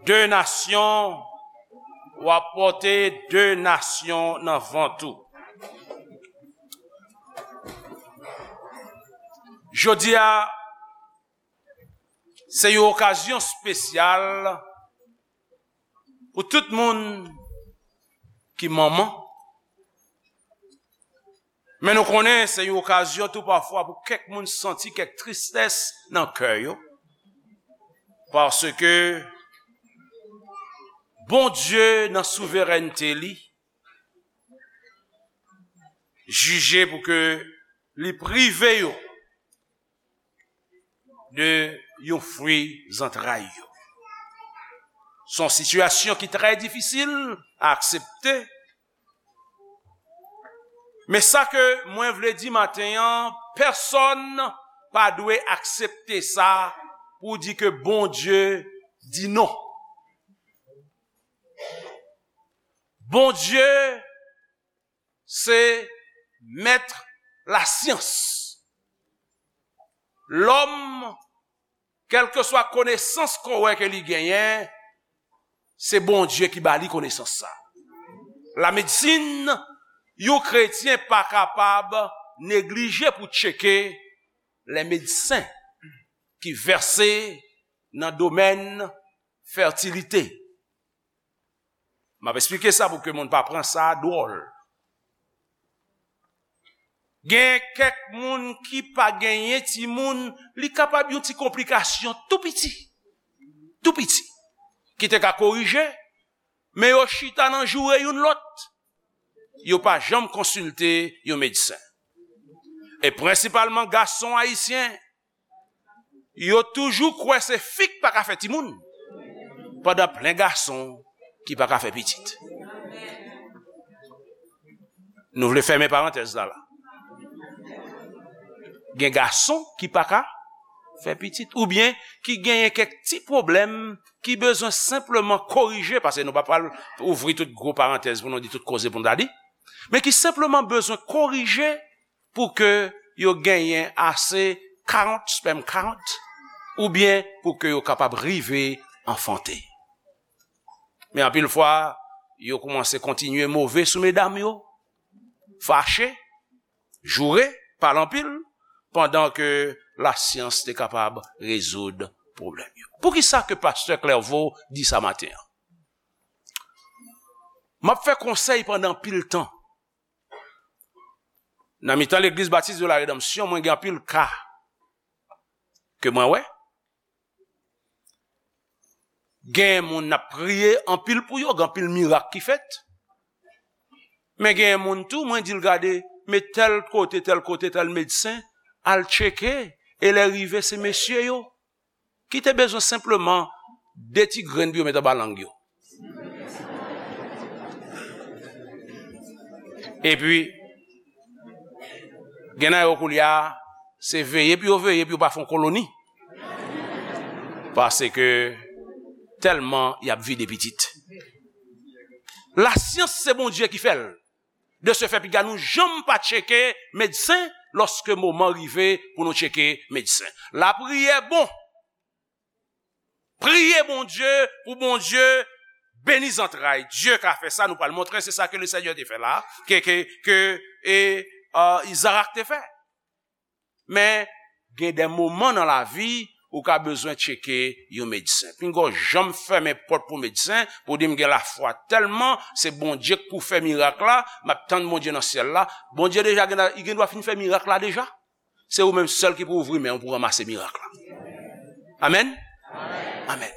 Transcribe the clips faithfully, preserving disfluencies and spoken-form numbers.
De nasyon, w ap pòte de nasyon nan vant ou. Jodi a, se yon okazyon espesyal pou tout moun ki manman. Men nou konnen se yon okazyon tou pafwa pou kèk moun santi kèk tristès nan kè yo. Paske Bondye nan souverènte li jije pou ke li prive yo de yon fwi zantray yo. Se yon sitiyasyon ki trè difisil a aksepte. Men sa ke mwen vle di maten an, pèsonn pa dwe aksepte sa pou di ke Bondye di non. Bondye se mèt lasyans. Lòm, kèlkeswa konesans ke w wè ke li genyen, se Bondye ki ba li konesans sa. Lamedsin, yon kretyen pa kapab neglije pou tcheke lè medsen ki vèse nan domèn fètilite. M ap esplike sa pou ke moun pa pran sa dwòl. Gen kèk moun ki pa genyen timoun, li kapab yon ti konplikasyon tou piti, tou piti, ki te ka korije, men yo chita nan joure youn lòt. Yo pa janm konsilte yon medsen. E prensipalman gason ayisyen, yo toujou kwè se fi k pa ka fè timoun, pandan plen gason ki pa ka fè pitit. Nou vle fèmen parantèz la la. Gen gason ki pa ka fè pitit, oubyen ki genyen kèk ti pwoblèm ki bezwen senpleman korije, paske nou pa pral ouvri tout gwo parantèz pou nou di tout koze pou nou ta di, men ki senpleman bezwen korije pou ke yo genyen ase count, sperm count, oubyen pou ke yo kapab rive anfante. Men anpil fwa, yo kòmanse kontinye move sou medam yo, fache, joure, pale anpil, pandan ke lasyans te kapab rezoud pwoblèm yo. Poukisa ke pastè Clairvaux di sa maten an? M ap fè konsèy pandan anpil tan. Nan mitan Legliz Batis de la Redanmsyon, mwen gen anpil ka ke mwen wè. Gen moun n ap priye anpil pou yo, gen anpil mirak ki fèt. Men gen moun tou, mwen di l gade, men tèl kote, tèl kote, tèl medsen, al tcheke, e lè rive se mesye yo ki te bezwen senpleman de ti grenn pou yo met anba lang yo. Epi, gen nan yo koulye a, se veye pou yo veye pou yo pa fè yon koloni. Paske tèlman y ap vide pitit. Lasyans se Bondye ki fè l. De ce fait, piga nou janm pa tcheke medsen lòske moman rive pou nou tcheke medsen. Lapriyè bon. Priye Bondye pou Bondye beni zantray. Dye ka fè sa, nou pral montre, se sa ke Lesenyè te fè la, ke, ke, ke, e, e, Izarak te fè. Men, gen de moman nan lavi, ou ka bezwen tcheke yon medsen. Pinga w janm fèmen pòt pou medsen, pou di m gen lafwa tèlman, se Bondye k pou fè mirak la, m ap tann Bondye nan syèl la. Bondye deja gen, li gen dwa fin fè mirak la deja. Se ou menm sèl ki pou ouvri men w pou ranmase mirak la. Amèn? Amèn.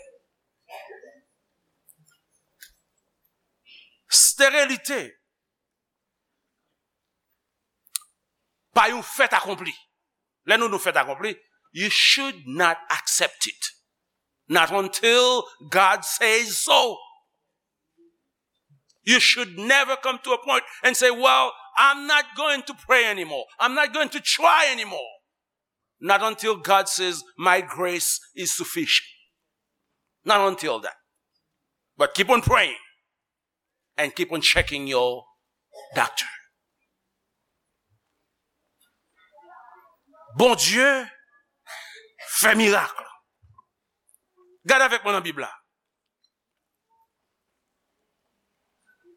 Sterilite pa yon fèt akonpli. Lè nou di yon fèt akonpli, you should not accept it. Not until God says so. You should never come to a point and say, "Well, I'm not going to pray anymore. I'm not going to try anymore." Not until God says, "My grace is sufficient." Not until that. But keep on praying and keep on checking your doctor. Bondye fè mirak. Gade avèk mwen nan Bib la.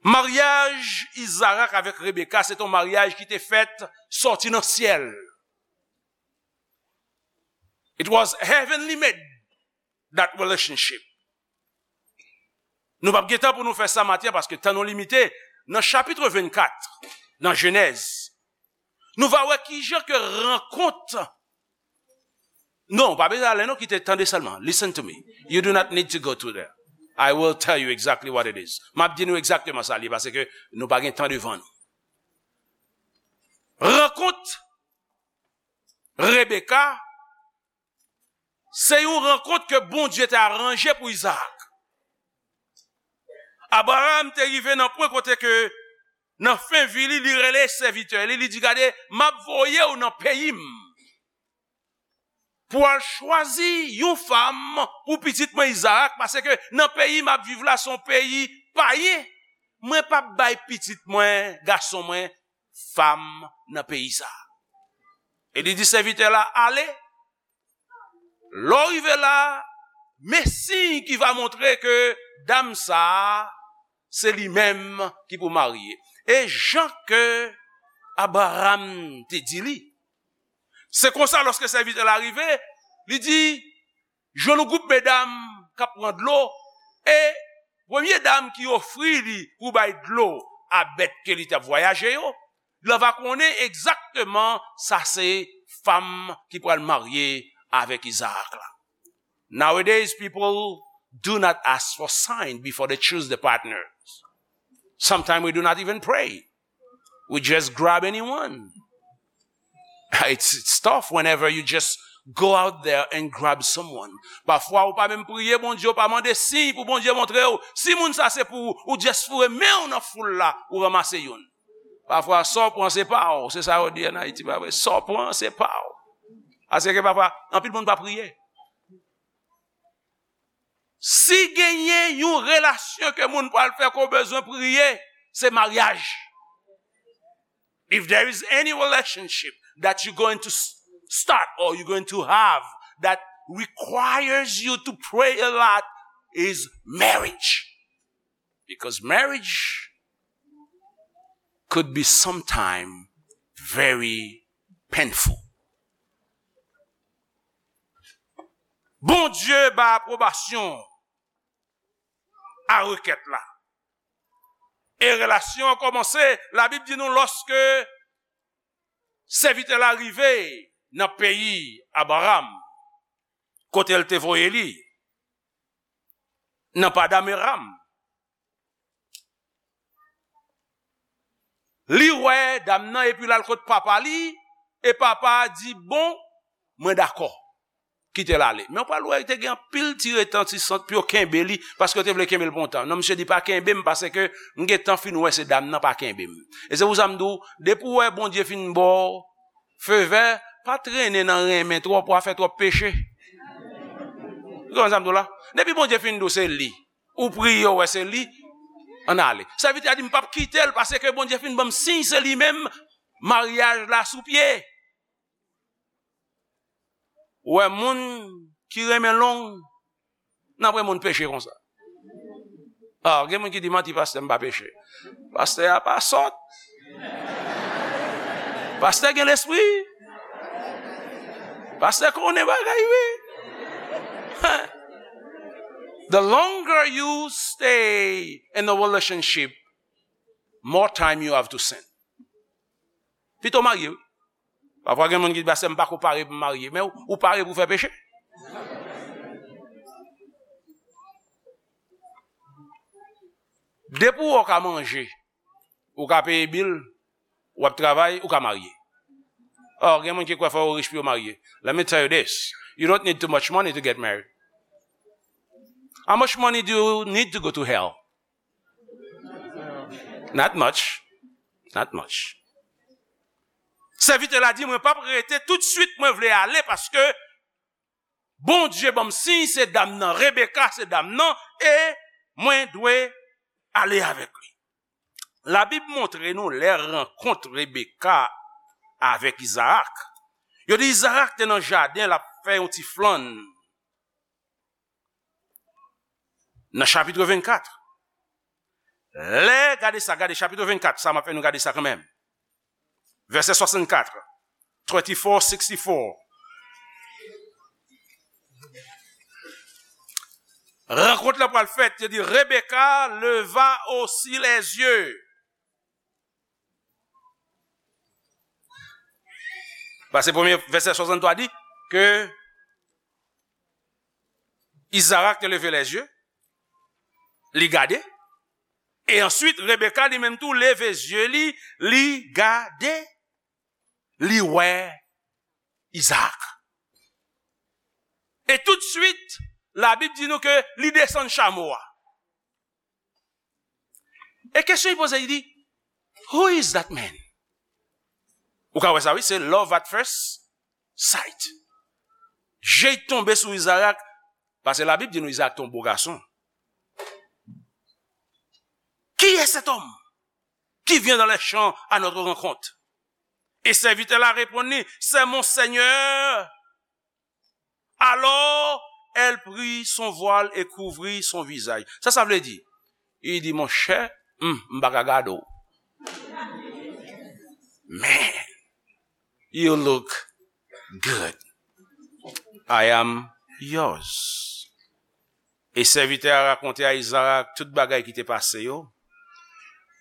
Maryaj Izarak avèk Rebeka, se te yon maryaj ki te fèt sòti nan syèl. It was heavenly made, that relationship. Nou p ap gen tan pou nou fè sa maten an, paske tan nou limite. Nan chapit vennkat, nan Jenèz, nou va wè kijan ke rankont. Non, pa bezwen ale non, kite, tande sèlman. Listen to me. You do not need to go to there. I will tell you exactly what it is. M ap di nou egzakteman sa l ye, paske nou pa gen tan devan nou. Rankont Rebeka, se yon rankont ke Bondye te aranje pou Izarak. Abraram te rive nan pwen kote ke, nan fen vi li, li rele sèvitè li, li di, "Gade, m ap voye w nan peyi m pou al chwazi yon fanm pou pitit mwen Izarak, paske nan peyi m ap viv la, se yon peyi payen. Mwen p ap bay pitit mwen, gason mwen, fanm nan peyi sa a." E li di sèvitè la, "Ale, lè w rive la, men siy ki va montre ke dam sa a, se li menm ki pou marye." E jan ke Abraram te di li, se konsa, lòske sèvitè la rive, li di, jwenn yon gwoup medam k ap pran dlo, e premye dam ki ofri li pou bay dlo a bèt ke li t ap vwayaje yo, li va konnen egzakteman sa se fanm ki pral marye avèk Izarak la. Nowadays, people do not ask for sign before they choose the partners. Sometimes we do not even pray. We just grab anyone. It's, it's tough whenever you just go out there and grab someone. Pafwa, ou pa menm priye Bondye, ou pa mande siy pou Bondye montre w si moun sa se pou ou, ou just foure men w nan foul la, ou ranmase youn. Pafwa, sa w pran se pa w, se sa yo di ann Ayiti, pa vre? Sa w pran se pa w. Paske pafwa, anpil moun pa priye. Si genyen yon relasyon ke moun pral fè ke w bezwen priye, se maryaj. If there is any relationship that you're going to s- start or you're going to have that requires you to pray a lot, is marriage. Because marriage could be sometime very painful. Bondye ba apwobasyon a rekèt la. E relasyon an kòmanse, Labib di nou, lòske sèvitè la rive nan peyi Abraram, kote l te voye li, nan Padanaram, li wè dam nan epi l al kot papa li, e papa a di, "Bon, mwen dakò. Kite l ale." Men w pral wè, te gen anpil ti retantisan pou yo kenbe li, paske yo te vle kenbe l pou yon tan. Non, misye di, "Pa kenbe m, paske m gentan fin wè se dam nan pa kenbe m." E se pou sa m di w, depi w wè Bondye fin ba w fevè, pa trennen nan renmen twòp, w a fè twòp peche. Ou konprann sa m di w la? Depi Bondye fin di w se li, ou priye, w wè se li, ann ale. Sèvitè a di, "M p ap kite l, paske Bondye fin ban m siy, se li menm, maryaj la sou pye." Ou wè, moun ki renmen long, n ap wè moun peche konsa. Ah, gen moun ki di, "Manti, pastè, m pa peche." Pastè a pa sòt. Pastè gen lespri. Pastè konnen bagay, wi. The longer you stay in a relationship, more time you have to sin. Pito marye, wi. Pafwa gen moun ki di, "Pastè, m pa ko pare pou m marye." Men ou, ou pare pou fè peche. Depi w ka manje, ou ka peye bil, w ap travay, ou ka marye. Or, gen moun ki kwè fò yo rich pou yo marye. Let me tell you this. You don't need too much money to get married. How much money do you need to go to hell? Not much. Not much. Sèvitè la di, "Mwen p ap rete, toutswit mwen vle ale, paske Bondye ban m siy, se dam nan, Rebeka se dam nan, e mwen dwe ale avèk li." Labib montre nou lè rankont Rebeka avèk Izarak. Yo di Izarak te nan jaden, l ap fè yon ti flann. Nan chapit vennkat, Lè, gade sa, gade chapit vennkat, sa m ap fè nou gade sa kanmenm. Vèsè swasannkat, twenty-four sixty-four. Rankont la pral fèt, yo di, Rebecca leva aussi les yeux. Paske premye vèsè swasanntwa di ke Izarak te leve lèzye, li gade, e answit Rebeka li menm tou leve zye li, li gade, li wè Izarak. E toutswit, Labib di nou ke li desann chamo a. E kesyon li poze, li di, "Who is that man?" Ou ka wè sa, wi, se love at first sight. Je tonbe sou Izarak, paske Labib di nou Izarak te yon bo gason. Qui est cet homme qui vient dans les champs à notre rencontre? Et serviteur la répondu, c'est mon Seigneur. Alors, elle prit son voile et couvrit son visage. Sa sa vle di? Li di, monchè, hmm, m pa ka gade w. Man, you look good. I am yours. E sèvitè a rakonte a Izarak tout bagay ki te pase yo.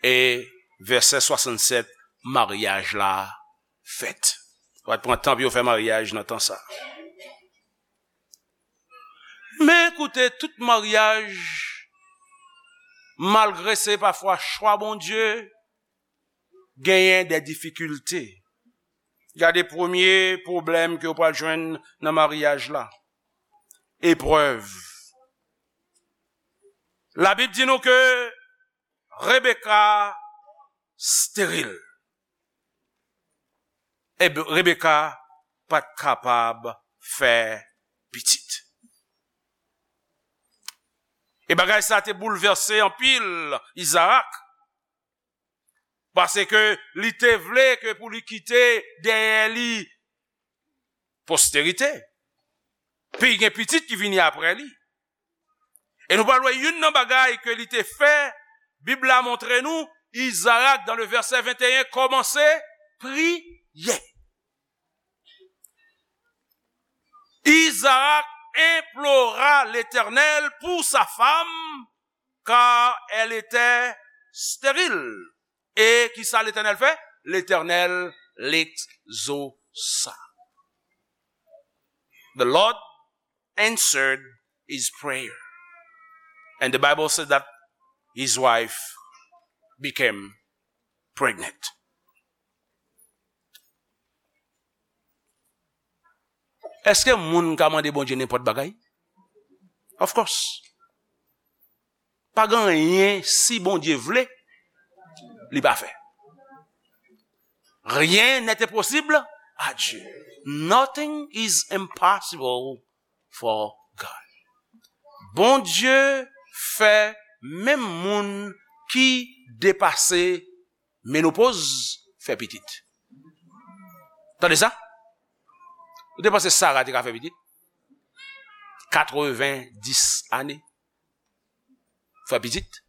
E vèsè swasannsèt, maryaj la fèt. Pa t pran tan pou yo fè maryaj nan tan sa. Men koute, tout maryaj, malgre se pafwa chwa Bondye, genyen de difikilte. Gade premye pwoblèm ke w pral jwenn nan maryaj la. Eprèv. Labib di nou ke Rebeka steril. E Rebeka pa t kapab fè pitit. E bagay sa te boulvèse anpil Izarak, paske li te vle ke pou li kite dèyè li posterite, pou l gen pitit ki vini apre li. E nou pral wè youn nan bagay ke li te fè, Bib la montre nou, Izarak, dans le verset vingt et un, kòmanse priye. Izarak implora Letènèl pou sa fanm, car elle était stérile. E ki sa Letènèl fè? Letènèl l'exauça. The Lord answered his prayer. And the Bible said that his wife became pregnant. Èske moun ka mande Bondye nenpòt bagay? Of course. Pa gen anyen, si Bondye vle, li pa fè. Rien n'est impossible à Dieu. Nothing is impossible for God. Bondye fè menm moun ki depase menopoz fè pitit. Tande sa? Ou te panse Sara te ka fè pitit? Katreven dis ane. Fè pitit?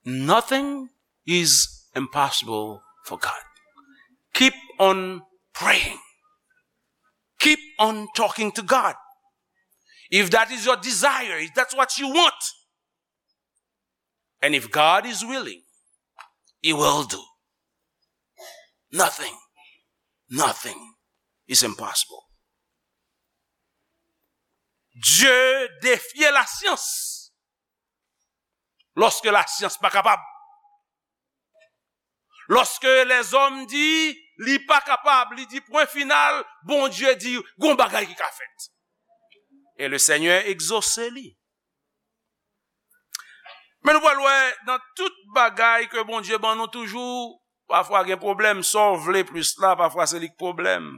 Nothing is impossible for God. Keep on praying. Keep on talking to God. If that is your desire, if that's what you want, and if God is willing, he will do. Nothing, nothing is impossible. Dye defye lasyans lòske lasyans pa kapab. Lòske lèzòm di li pa kapab, li di pwen final, Bondye di gon bagay ki ka fèt. E le Senyè egzose li. Men nou pral wè nan tout bagay ke Bondye ban nou toujou, pafwa gen pwoblèm, sa w vle plis la, pafwa se li k pwoblèm.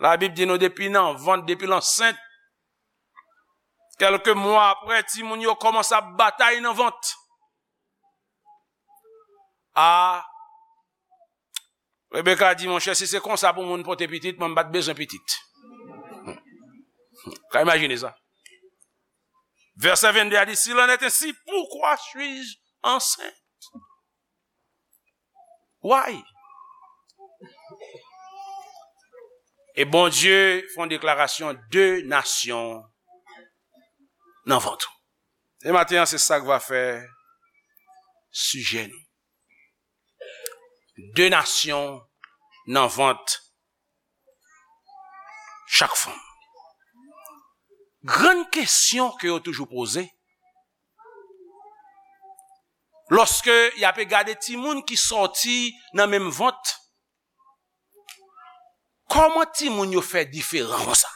Labib di nou depi nan vant, depi l ansent, kèlke mwa apre, timoun yo kòmanse ap batay nan vant. A, Rebeka di, monchè, si se konsa pou moun pote pitit, mwen m pa t bezwen pitit. Ka imajine sa. Verset vingt-deux a dit, s'il en est ainsi, pourquoi suis-je enceinte? Why? E Bondye fè yon deklarasyon, de nasyon nan vant ou. E maten an, se sa k va fè sijè nou. De nasyon nan vant chak fanm. Grann kesyon ke yo toujou poze, lòske y ape gade timoun ki sòti nan menm vant, kòman timoun yo fè diferan konsa?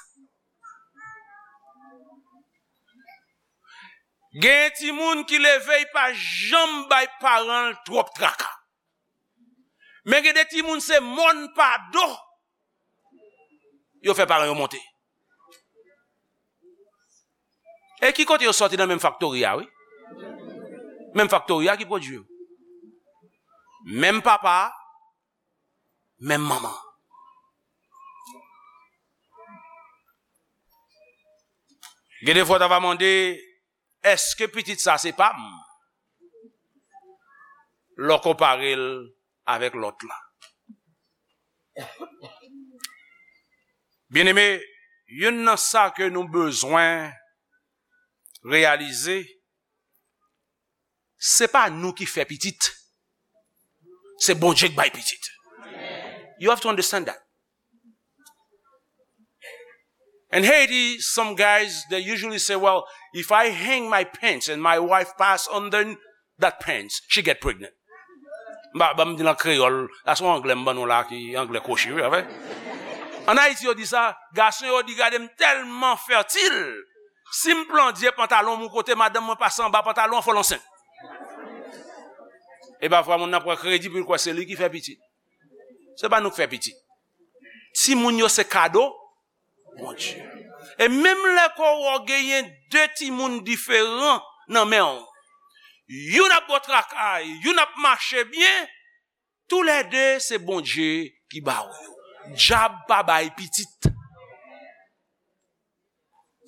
Gen timoun ki leve, li pa janm bay paran l twòp traka. Men gen de timoun, se mòn pa do yo fè paran yo monte. E ki kote yo sòti? Nan menm faktori a, wi. Menm faktori a ki pwodui yo. Menm papa, menm manman. Gen de fwa w ta va mande, èske pitit sa se pa m? Lè w konpare l avèk lòt la. Byeneme, youn nan sa ke nou bezwen reyalize, se pa nou ki fè pitit. Se Bondye k bay pitit. You have to understand that. In Haiti, some guys, they usually say, well, if I hang my pants and my wife pass under that pants, she get pregnant. Ba, ba m di l an kreyòl, la se yon anglè m ban nou la ki anglè kwochi, wi, anfen. An Ayiti, yo di sa, gason yo di, gade m tèlman fètil, si m plandye pantalon m yon kote, madanm mwen pase anba pantalon an, fò l ansent. E pafwa, moun nan pran kredi pou l kwè se li ki fè pitit. Se pa nou k fè pitit. Timoun yo se kado Bondye. E menm lè ke w genyen de timoun diferan nan men w, youn ap bò traka, youn ap mache byen, toulède se Bondye ki ba w yo. Dyab pa bay pitit.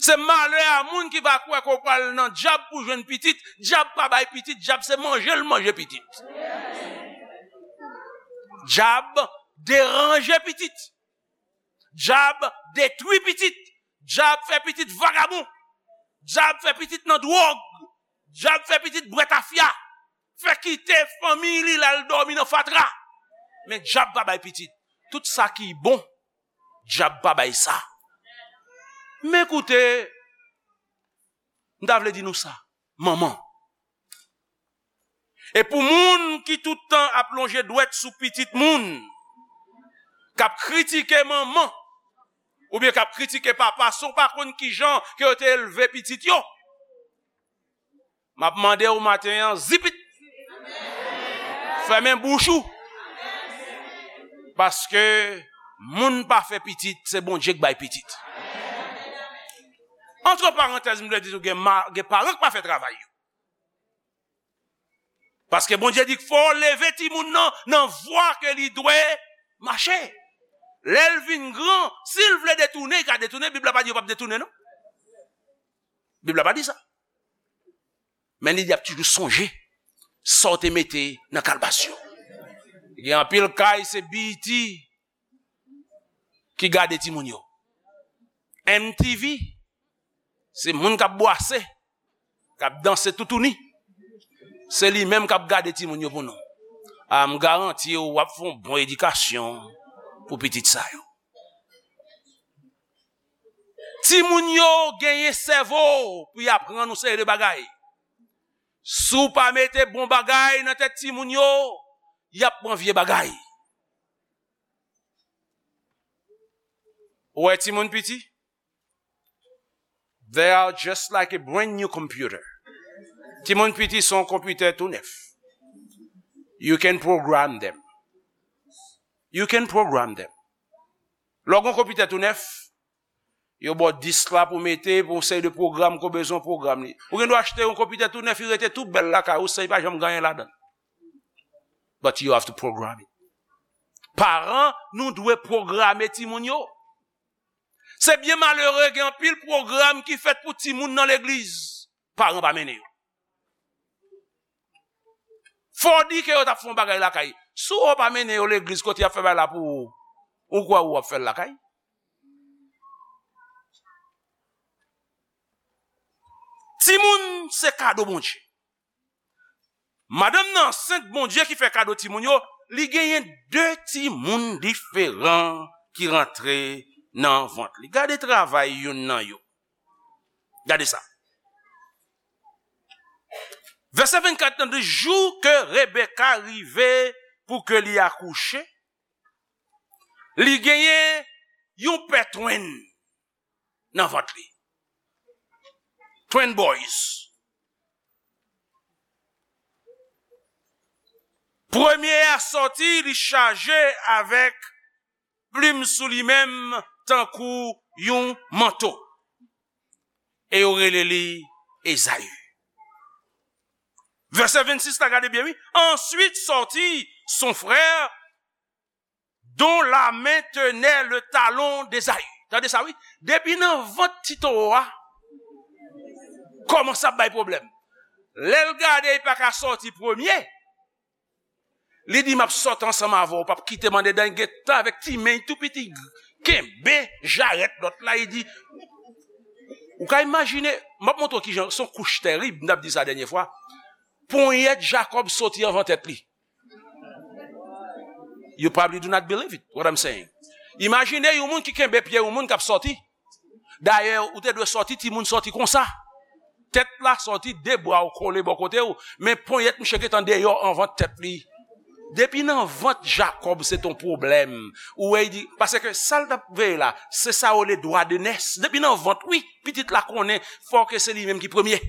Se malè a moun ki va kwè ke w pral nan dyab pou jwenn pitit. Dyab pa bay pitit, dyab se manje l manje pitit. Dyab deranje pitit. Dyab detwi pitit. Dyab fè pitit vagabon. Dyab fè pitit nan dwòg. Dyab fè pitit bwè tafya. Fè kite fanmi li, l al dòmi nan fatra. Men dyab pa bay pitit. Tout sa ki bon, dyab pa bay sa. Men koute, m ta vle di nou sa. Manman. E pou moun ki tout tan ap lonje dwèt sou pitit moun, k ap kritike manman, oubyen k ap kritike papa, si w pa konn kijan ke yo te elve pitit yo, m ap mande w maten an, zipit! Fèmen bouch ou! Paske moun pa fè pitit, se Bondye k bay pitit. Antre parantèz, m vle di nou, gen ma-, gen paran k pa fè travay yo. Paske Bondye di fò w leve timoun nan nan vwa ke li dwe mache. Lè l vin gran, si l vle detounen, li ka detounen. Bib la pa di yo p ap detounen, non. Bib la pa di sa. Men li di y ap toujou sonje sa w te mete nan kalbas yo. Gen anpil kay, se B E T ki gade timoun yo. M T V, se moun k ap bwase, k ap danse toutouni. Se li menm k ap gade timoun yo pou nou. A, m garanti w, w ap fè yon bon edikasyon pou pitit sa yo. Timoun yo genyen sèvo pou y aprann yon seri de bagay. Si w pa mete bon bagay nan tèt timoun yo, y ap pran vye bagay. Ou wè timoun piti? They are just like a brand new computer. Timoun piti se yon konpitè tou nèf. You can program them. You can program them. Lè w gen yon konpitè tou nèf, yo ba w disk la pou mete, pou yon seri de pwogram ke w bezwen, w pwogram li. Ou gen dwa achte yon konpitè tou nèf, li rete tou bèl lakay ou, san li pa janm gen anyen ladan l. But you have to program it. Paran, nou dwe pwograme timoun yo. Se byen malere, gen anpil pwogram ki fèt pou timoun nan legliz. paran pa mennen yo. Fò w di ke yo t ap fè yon bagay lakay. Si w pa mennen yo legliz kote y ap fè bagay la pou ou, ou kwè ou ap fè l lakay? Timoun se kado Bondye. Madanm nan ansent, Bondye ki fè kado timoun yo, li genyen de timoun diferan ki rantre nan vant li. Gade travay youn nan yo. Gade sa. Vèsè vennkat nan di, jou ke Rebeka rive pou ke li akouche, li genyen yon pè twin nan vant li. Twin boys. Premye a sòti, li chaje avèk plim sou li menm tankou yon manto. E yo rele li Ezayi. Vèsè vennsis la, gade byen, wi. Ensuite sortit son frère dont la main tenait le talon d'Ésaü. Tande sa, wi. Depi nan vant ti towo a, kòmanse ap bay pwoblèm. Lè l gade, li pa ka sòti premye. Li di, "M ap sòti ansanm avè w, w p ap kite m andedan." Li gentan avèk ti men tou piti, kenbe jarèt lòt la, li di, ou ka imajine, m ap montre w kijan, se yon kouch tèrib, m t ap di sa dènye fwa. Ponyèt Jakòb soti anvan tèt li. You probably do not believe it, what I'm saying. Imajine yon moun ki kenbe pye yon moun k ap sòti. Dayè, ou te dwe sòti, timoun sòti konsa. Tèt la sòti, de bra w kole bò kote w, men ponyèt misye gentan deyò anvan tèt li. Depi nan vant Jakòb, se t on pwoblèm. Ou wè, li di, paske sa l t ap veye la, se sa yo rele dwa de nès. Depi nan vant, wi, pitit la konnen, fò ke se li menm ki premye.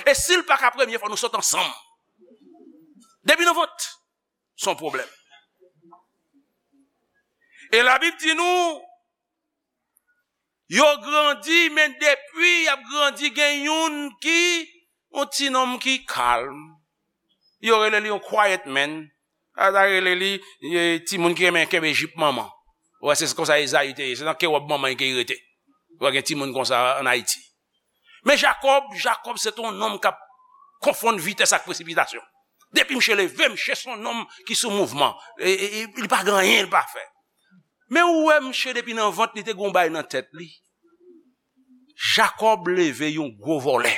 E si l pa ka premye, fò nou sòt ansanm. Depi nan vant, se yon pwoblèm. E Labib di nou, yo grandi, men depi y ap grandi, gen youn ki, yon ti nonm ki kalm. Yo rele li yon quiet man. Yo ta rele li, e, timoun ki renmen kenbe jip manman. Ou wè, se konsa Ezayi te ye. Se nan ke wòb manman li ke li rete. Ou wè, gen timoun konsa ann Ayiti. Men Jakòb, Jakòb se t on nonm k ap konfonn vitès ak presipitasyon. Depi misye leve, misye se on nonm ki sou mouvman. E, e, e, li pa gen anyen li pa fè. Men ou wè misye depi nan vant li te gen yon bagay nan tèt li. Jakòb leve yon gwo vòlè.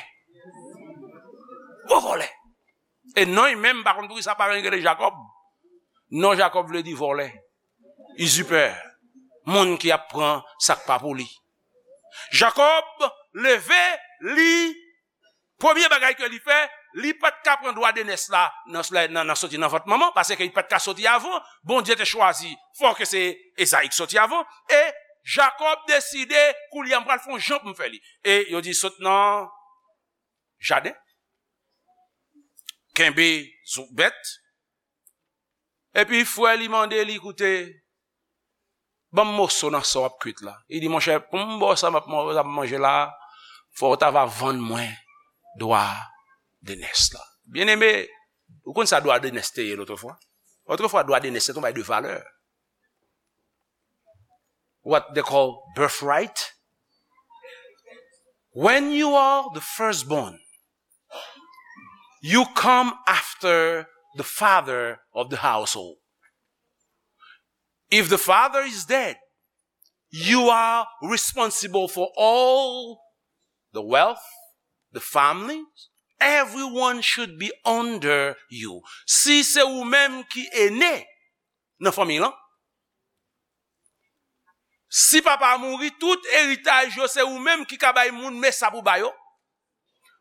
Gwo vòlè. E non li menm, m pa konn poukisa paran li rele Jakòb. Non Jakòb vle di vòlè. Izipè. Moun ki ap pran sa k pa pou li. Jakòb leve, li, premye bagay ke li fè, li pa t ka pran dwa de nès la nan, nan, nan soti nan vant manman, paske li pa t ka soti avan, Bondye te chwazi, fò ke se Ezayi k soti avan, e Jakòb deside, koulye a m pral fè yon jan pou m fè li. E yo di, sot nan jaden, kenbe zo-, bèt, epi frè li mande li, koute, ban m moso nan sa w ap kwit la. Li di, monchè, pou m ba w sa m ap man-, sa m ap manje la, fò w ta va vann mwen dwa de nès la. Byeneme, ou konn sa dwa de nès te ye lotrefwa? Otrefwa, dwa de nès se t on bagay de valè. What they call birthright. When you are the firstborn, you come after the father of the household. If the father is dead, you are responsible for all the wealth, the family. Everyone should be under you. Si se ou menm ki ene nan fanmi lan, si papa a mouri, tout eritaj yo se ou menm ki ka bay moun, men sa pou ba yo.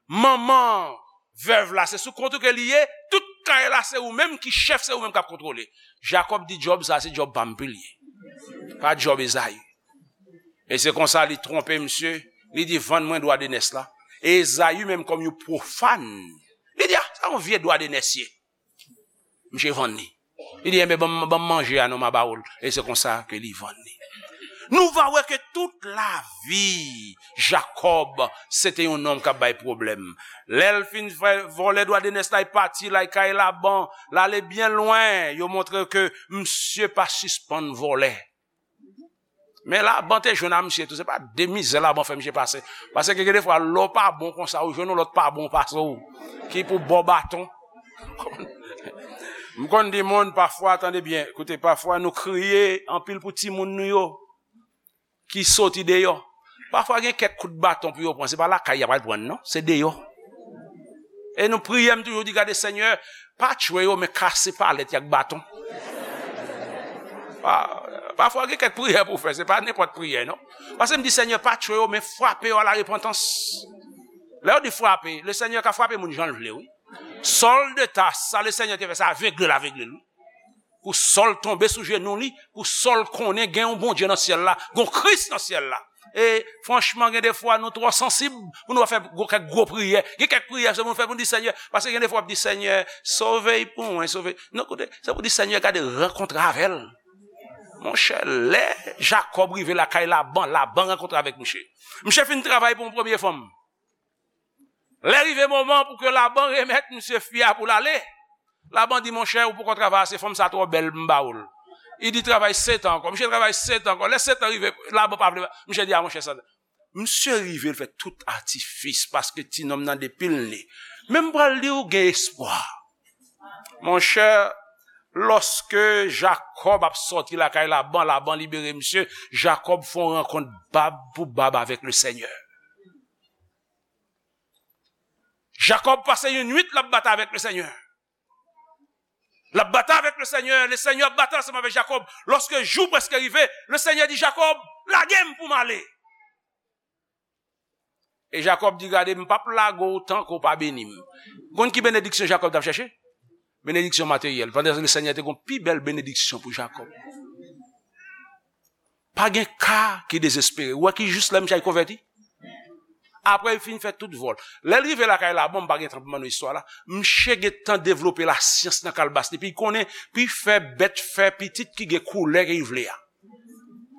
Manman vèv la, se sou kont ou ke li ye, tout kay la se ou menm ki chèf, se ou menm k ap kontwole. Jakòb di, djòb sa se djòb pa m pou l ye. Pa djòb Ezayi. E se konsa li twonpe misye, li di, vann mwen dwa de nès la. E Ezayi menm kòm yon pwofàn, li di, a, sa yon vye dwa de nès ye. Misye vann li. Li di, enben, ban m, ban m manje a non, m a ba w l. E se konsa ke li vann li. Nou va wè ke tout lavi Jakòb, se te yon nonm k ap bay pwoblèm. Lè l fin fè vòlè dwa de nès la, li pati, l al kay Laban, l ale byen lwen, yo montre ke misye pa sispann vòlè. Men Laban te jwenn a misye tou, se pa de mizè Laban fè misye pase. Paske gen de fwa, lè w pa bon konsa, ou jwenn yon lòt pa bon pase w, ki pou ba w baton. M konn di moun, pafwa, tande byen, koute, pafwa nou kriye anpil pou timoun nou yo ki soti deyò. Pafwa gen kèk kout baton pou yo pran, se pa lakay y ap al pran, non, se deyò. E nou priye, m toujou di, gade, Senyè, pa tchwe yo, men kase palèt y ak baton. Pa- Pafwa gen kèk priyè pou w fè, se pa nenpòt priyè, non. Paske m di, Senyè, pa tchwe yo, men frape yo a la repantans. Lè yo di frape, le Senyè ka frape moun jan l vle, wi. Sòl de Tas, sa le Senyè te fè, se avegle l avegle l, wi. Pou Sòl tonbe sou jenou li, pou Sòl konnen gen yon Bondye nan syèl la, gen yon Kris nan syèl la. E franchman, gen de fwa nou twò sansib pou nou pa fè gwo, kèk gwo priyè. Gen kèk priyè, se pou nou fè pou nou di, Senyè, paske gen de fwa w ap di, Senyè, sove l pou mwen, sove l. Non, koute, se pou di, Senyè, gade, rankontre avè l. Monchè, lè Jakòb rive lakay Laban, Laban rankontre avèk misye. Misye fin travay pou yon premye fanm. Lè rive moman pou ke Laban remèt misye fi a pou l ale, Laban di, monchè, ou poko travay ase, fanm sa twò bèl, m ba ou l. Li di, travay sèt an ankò. Misye travay sèt an ankò. Lè sèt an rive, Laban pa vle. Misye di, a, monchè, sa. Misye rive, l fè tout atifis paske ti nonm nan depi l ne. Men m pral di w gen espwa. Monchè, lòske Jakòb ap sòti lakay Laban, Laban libere misye, Jakòb fè yon rankont bab pou bab avèk le Senyè. Jakòb pase yon nwit l ap batay avèk le Senyè. L ap batay avèk le Senyè, le Senyè ap batay ansanm avèk Jakòb. Lòske jou prèske rive, le Senyè di Jakòb, lage m pou m ale. E Jakòb di, gade, m p ap lage w tanke w pa beni m. Konn ki benediksyon Jakòb t ap chèche? Benediksyon materyèl. Pandan le Senyè te gon pi bèl benediksyon pou Jakòb. Pa gen ka ki dezespere. Ou wè ki jis lè misye konvèti? Apre li fin fè tout vòl. Lè l rive lakay Laban, m pa gen tan pou m ban nou istwa la. Misye gentan devlope lasyans nan kalbas li. Epi li konnen, pou l fè bèt fè pitit ki gen koulè ke li vle a.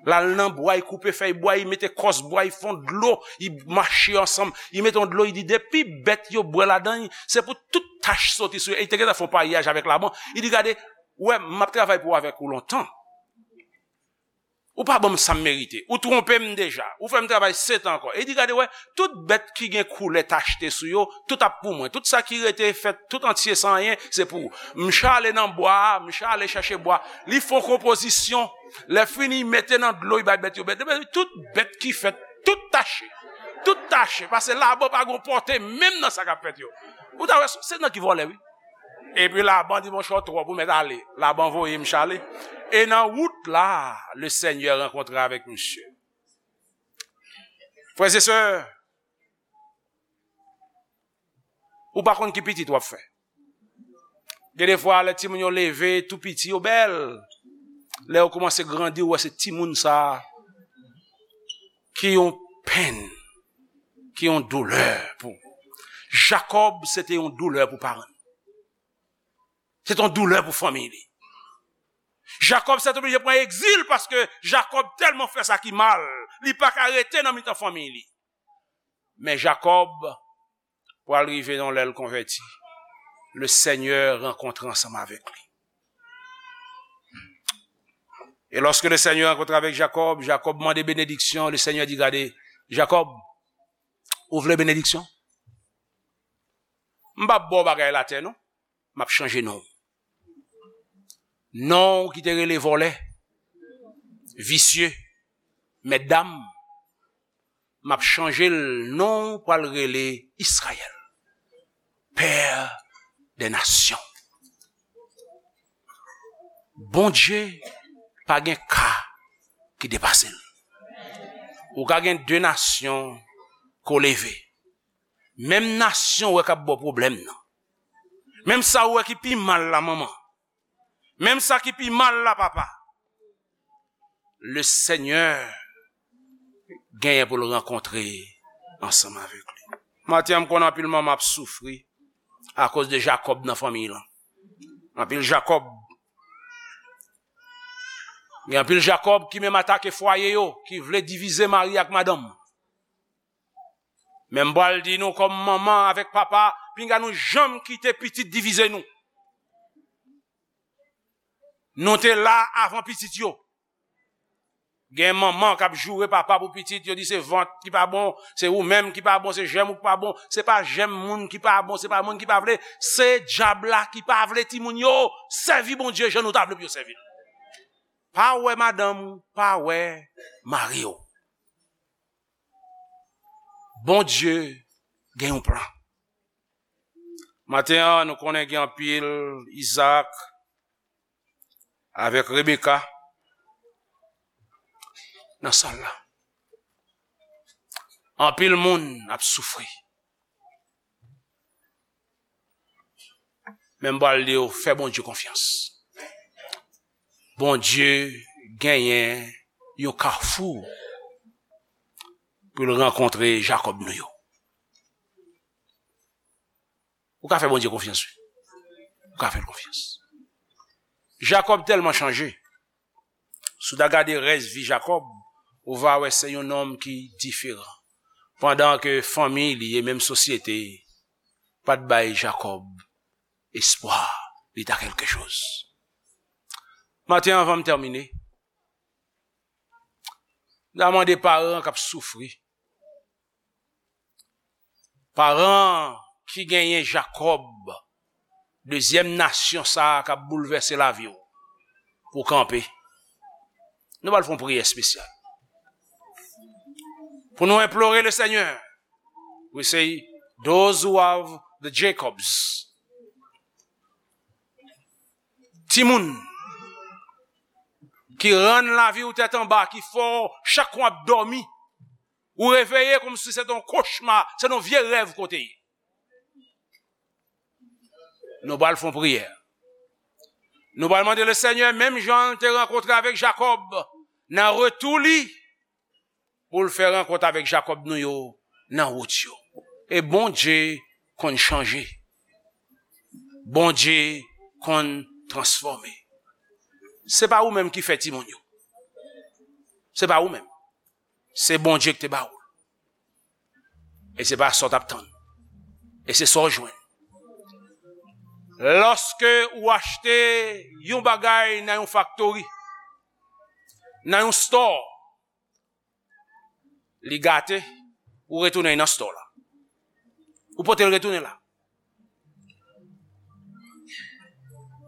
L al nan bwa, li koupe fèy bwa, li mete kòs bwa, li fè yon dlo, li mache ansanm, li mete yon dlo, li di, depi bèt yo bwè ladan, se pou tout tach soti sou yo. E li te gentan fè yon paryaj avèk Laban. Li di, gade, ou wè, m ap travay pou avèk ou lontan. Ou pa ban m sa m merite. Ou twonpe m deja. Ou fè m travay sèt an ankò. E li di, gade, wè, tout bèt ki gen koulè tachte sou yo, tout ap pou mwen. Tout sa ki rete fèt, tout antye san anyen, se pou ou. M chale nan bwa a, m chale chèche bwa. Li fè yon konpozisyon. Lè fini, li mete nan dlo, li bay bèt yo bwè. Tout bèt ki fèt, tout tache. Tout tache. Paske Laban pa gon pòte menm nan sa k ap fèt yo. Ou ta wè, se nan ki vòlè, wi. Epi Laban di, monchè, w twòp, ou mèt ale. Laban voye m chale. E nan wout la, le Senyè rankontre avèk misye. Frè e sè, ou pa konn ki pitit w ap fè. Gen de fwa, lè timoun yo leve, tou piti, yo bèl. Lè yo kòmanse grandi, ou wè se timoun sa a ki yon penn, ki yon doulè pou ou. Jakòb, se te yon doulè pou paran l. Se te yon doulè pou fanmi li. Jakòb sètoblije pran egzil paske Jakòb tèlman fè sa ki mal, li pa ka rete nan mitan fanmi li. Men Jakòb pral rive yon lè l konvèti. Le Senyè rankontre ansanm avèk li. E lòske le Senyè rankontre avèk Jakòb, Jakòb mande benediksyon, le Senyè di, gade, Jakòb, ou vle benediksyon? M p ap ba w bagay latè, non. M ap chanje non w. Non w ki te rele vòlè, visye, mètdam, m ap chanje l, non w pral rele Izrayèl, pè dè nasyon. Bondye pa gen ka ki depase l. Ou ka gen de nasyon ke w leve. Menm nasyon w wè k ap ba w pwoblèm nan. Menm sa w wè ki pi mal la, manman. Menm sa ki pi mal la, papa. Le Senyè genyen pou l rankontre ansanm avèk li. Maten an, m konnen anpil manman ap soufri akoz de Jakòb nan fanmiy lan. Anpil Jakòb. Gen anpil Jakòb ki menm atake fwaye yo, ki vle divize mari ak madanm. Men m pral di nou kòm manman avèk papa, pinga nou janm kite pitit divize nou. Nou te la avan pitit yo. Gen manman k ap joure papa pou pitit, yo di se vant ki pa bon, se ou menm ki pa bon, se jèm ou ki pa bon. Se pa jèm moun ki pa bon, se pa moun ki pa vle, se dyab la ki pa vle timoun yo sèvi Bondye jan nou ta vle pou yo sèvi l. Pa wè madanm ou, pa wè mari w. Bondye gen yon plan. Maten an, nou konnen gen anpil Izaak avèk Rebeka nan sal la. Anpil moun ap soufri. Men m pral di w, fè Bondye konfyans. Bondye genyen yon kafou pou l rankontre Jakòb nou yo. Ou ka fè Bondye konfyans, wi. Ou ka fè l konfyans. Jakòb tèlman chanje. Si w ta gade rès vi Jakòb, ou va wè se yon nonm ki diferan. Pandan ke fanmi li e menm sosyete pa t bay Jakòb espwa li ta kèlkechoz. Maten an, anvan m tèmine, m ta mande paran k ap soufri, paran ki genyen Jakòb, dezyèm nasyon sa a k ap boulvèse lavi w, pou kanpe. Nou pral fè yon priyè espesyal. Pou nou enplore le Senyè. We say, those who have the Jacobs. Timoun ki rann lavi w tèt anba, ki fè w chak w ap dòmi, ou reveye kòmsi se t on kochma, se t on vye rèv kote ye. Nou pral fè yon priyè. Nou pral mande le Senyè, menm jan l te rankontre avèk Jakòb, nan retou li, pou l fè rankont avèk Jakòb nou yo nan wout yo. E Bondye konn chanje. Bondye konn transfòme. Se pa ou menm ki fè timoun yo. Se pa ou menm. Se Bondye ki te ba ou l. E se pa sa w t ap tann. E se sa w jwenn. Lòske ou achte yon bagay nan yon faktori, nan yon store, li gate, ou retounen nan store la. Ou pote l retounen la.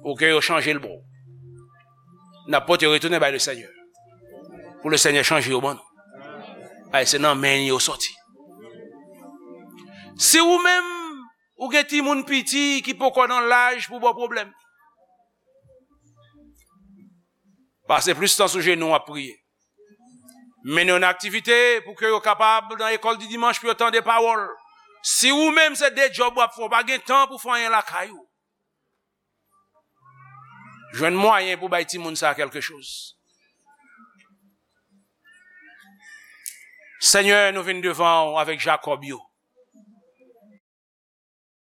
Pou ke yo chanje l pou ou. N ap pote yo retounen bay le Senyè. Pou le Senyè chanje yo ban nou. Ay, se nan men yo soti. Si ou menm, ou gen timoun piti ki poko nan laj pou ba w pwoblèm, pase plis tan sou jenou w ap priye. Mennen yo nan aktivite pou ke yo kapab nan lekòl di dimanch pou yo tande pawòl. Si ou menm se de djòb w ap fè, w pa gen tan pou fè anyen lakay ou, jwenn mwayen pou bay timoun sa a kèlkechoz. Senyè, nou vin devan w avèk Jakòb yo.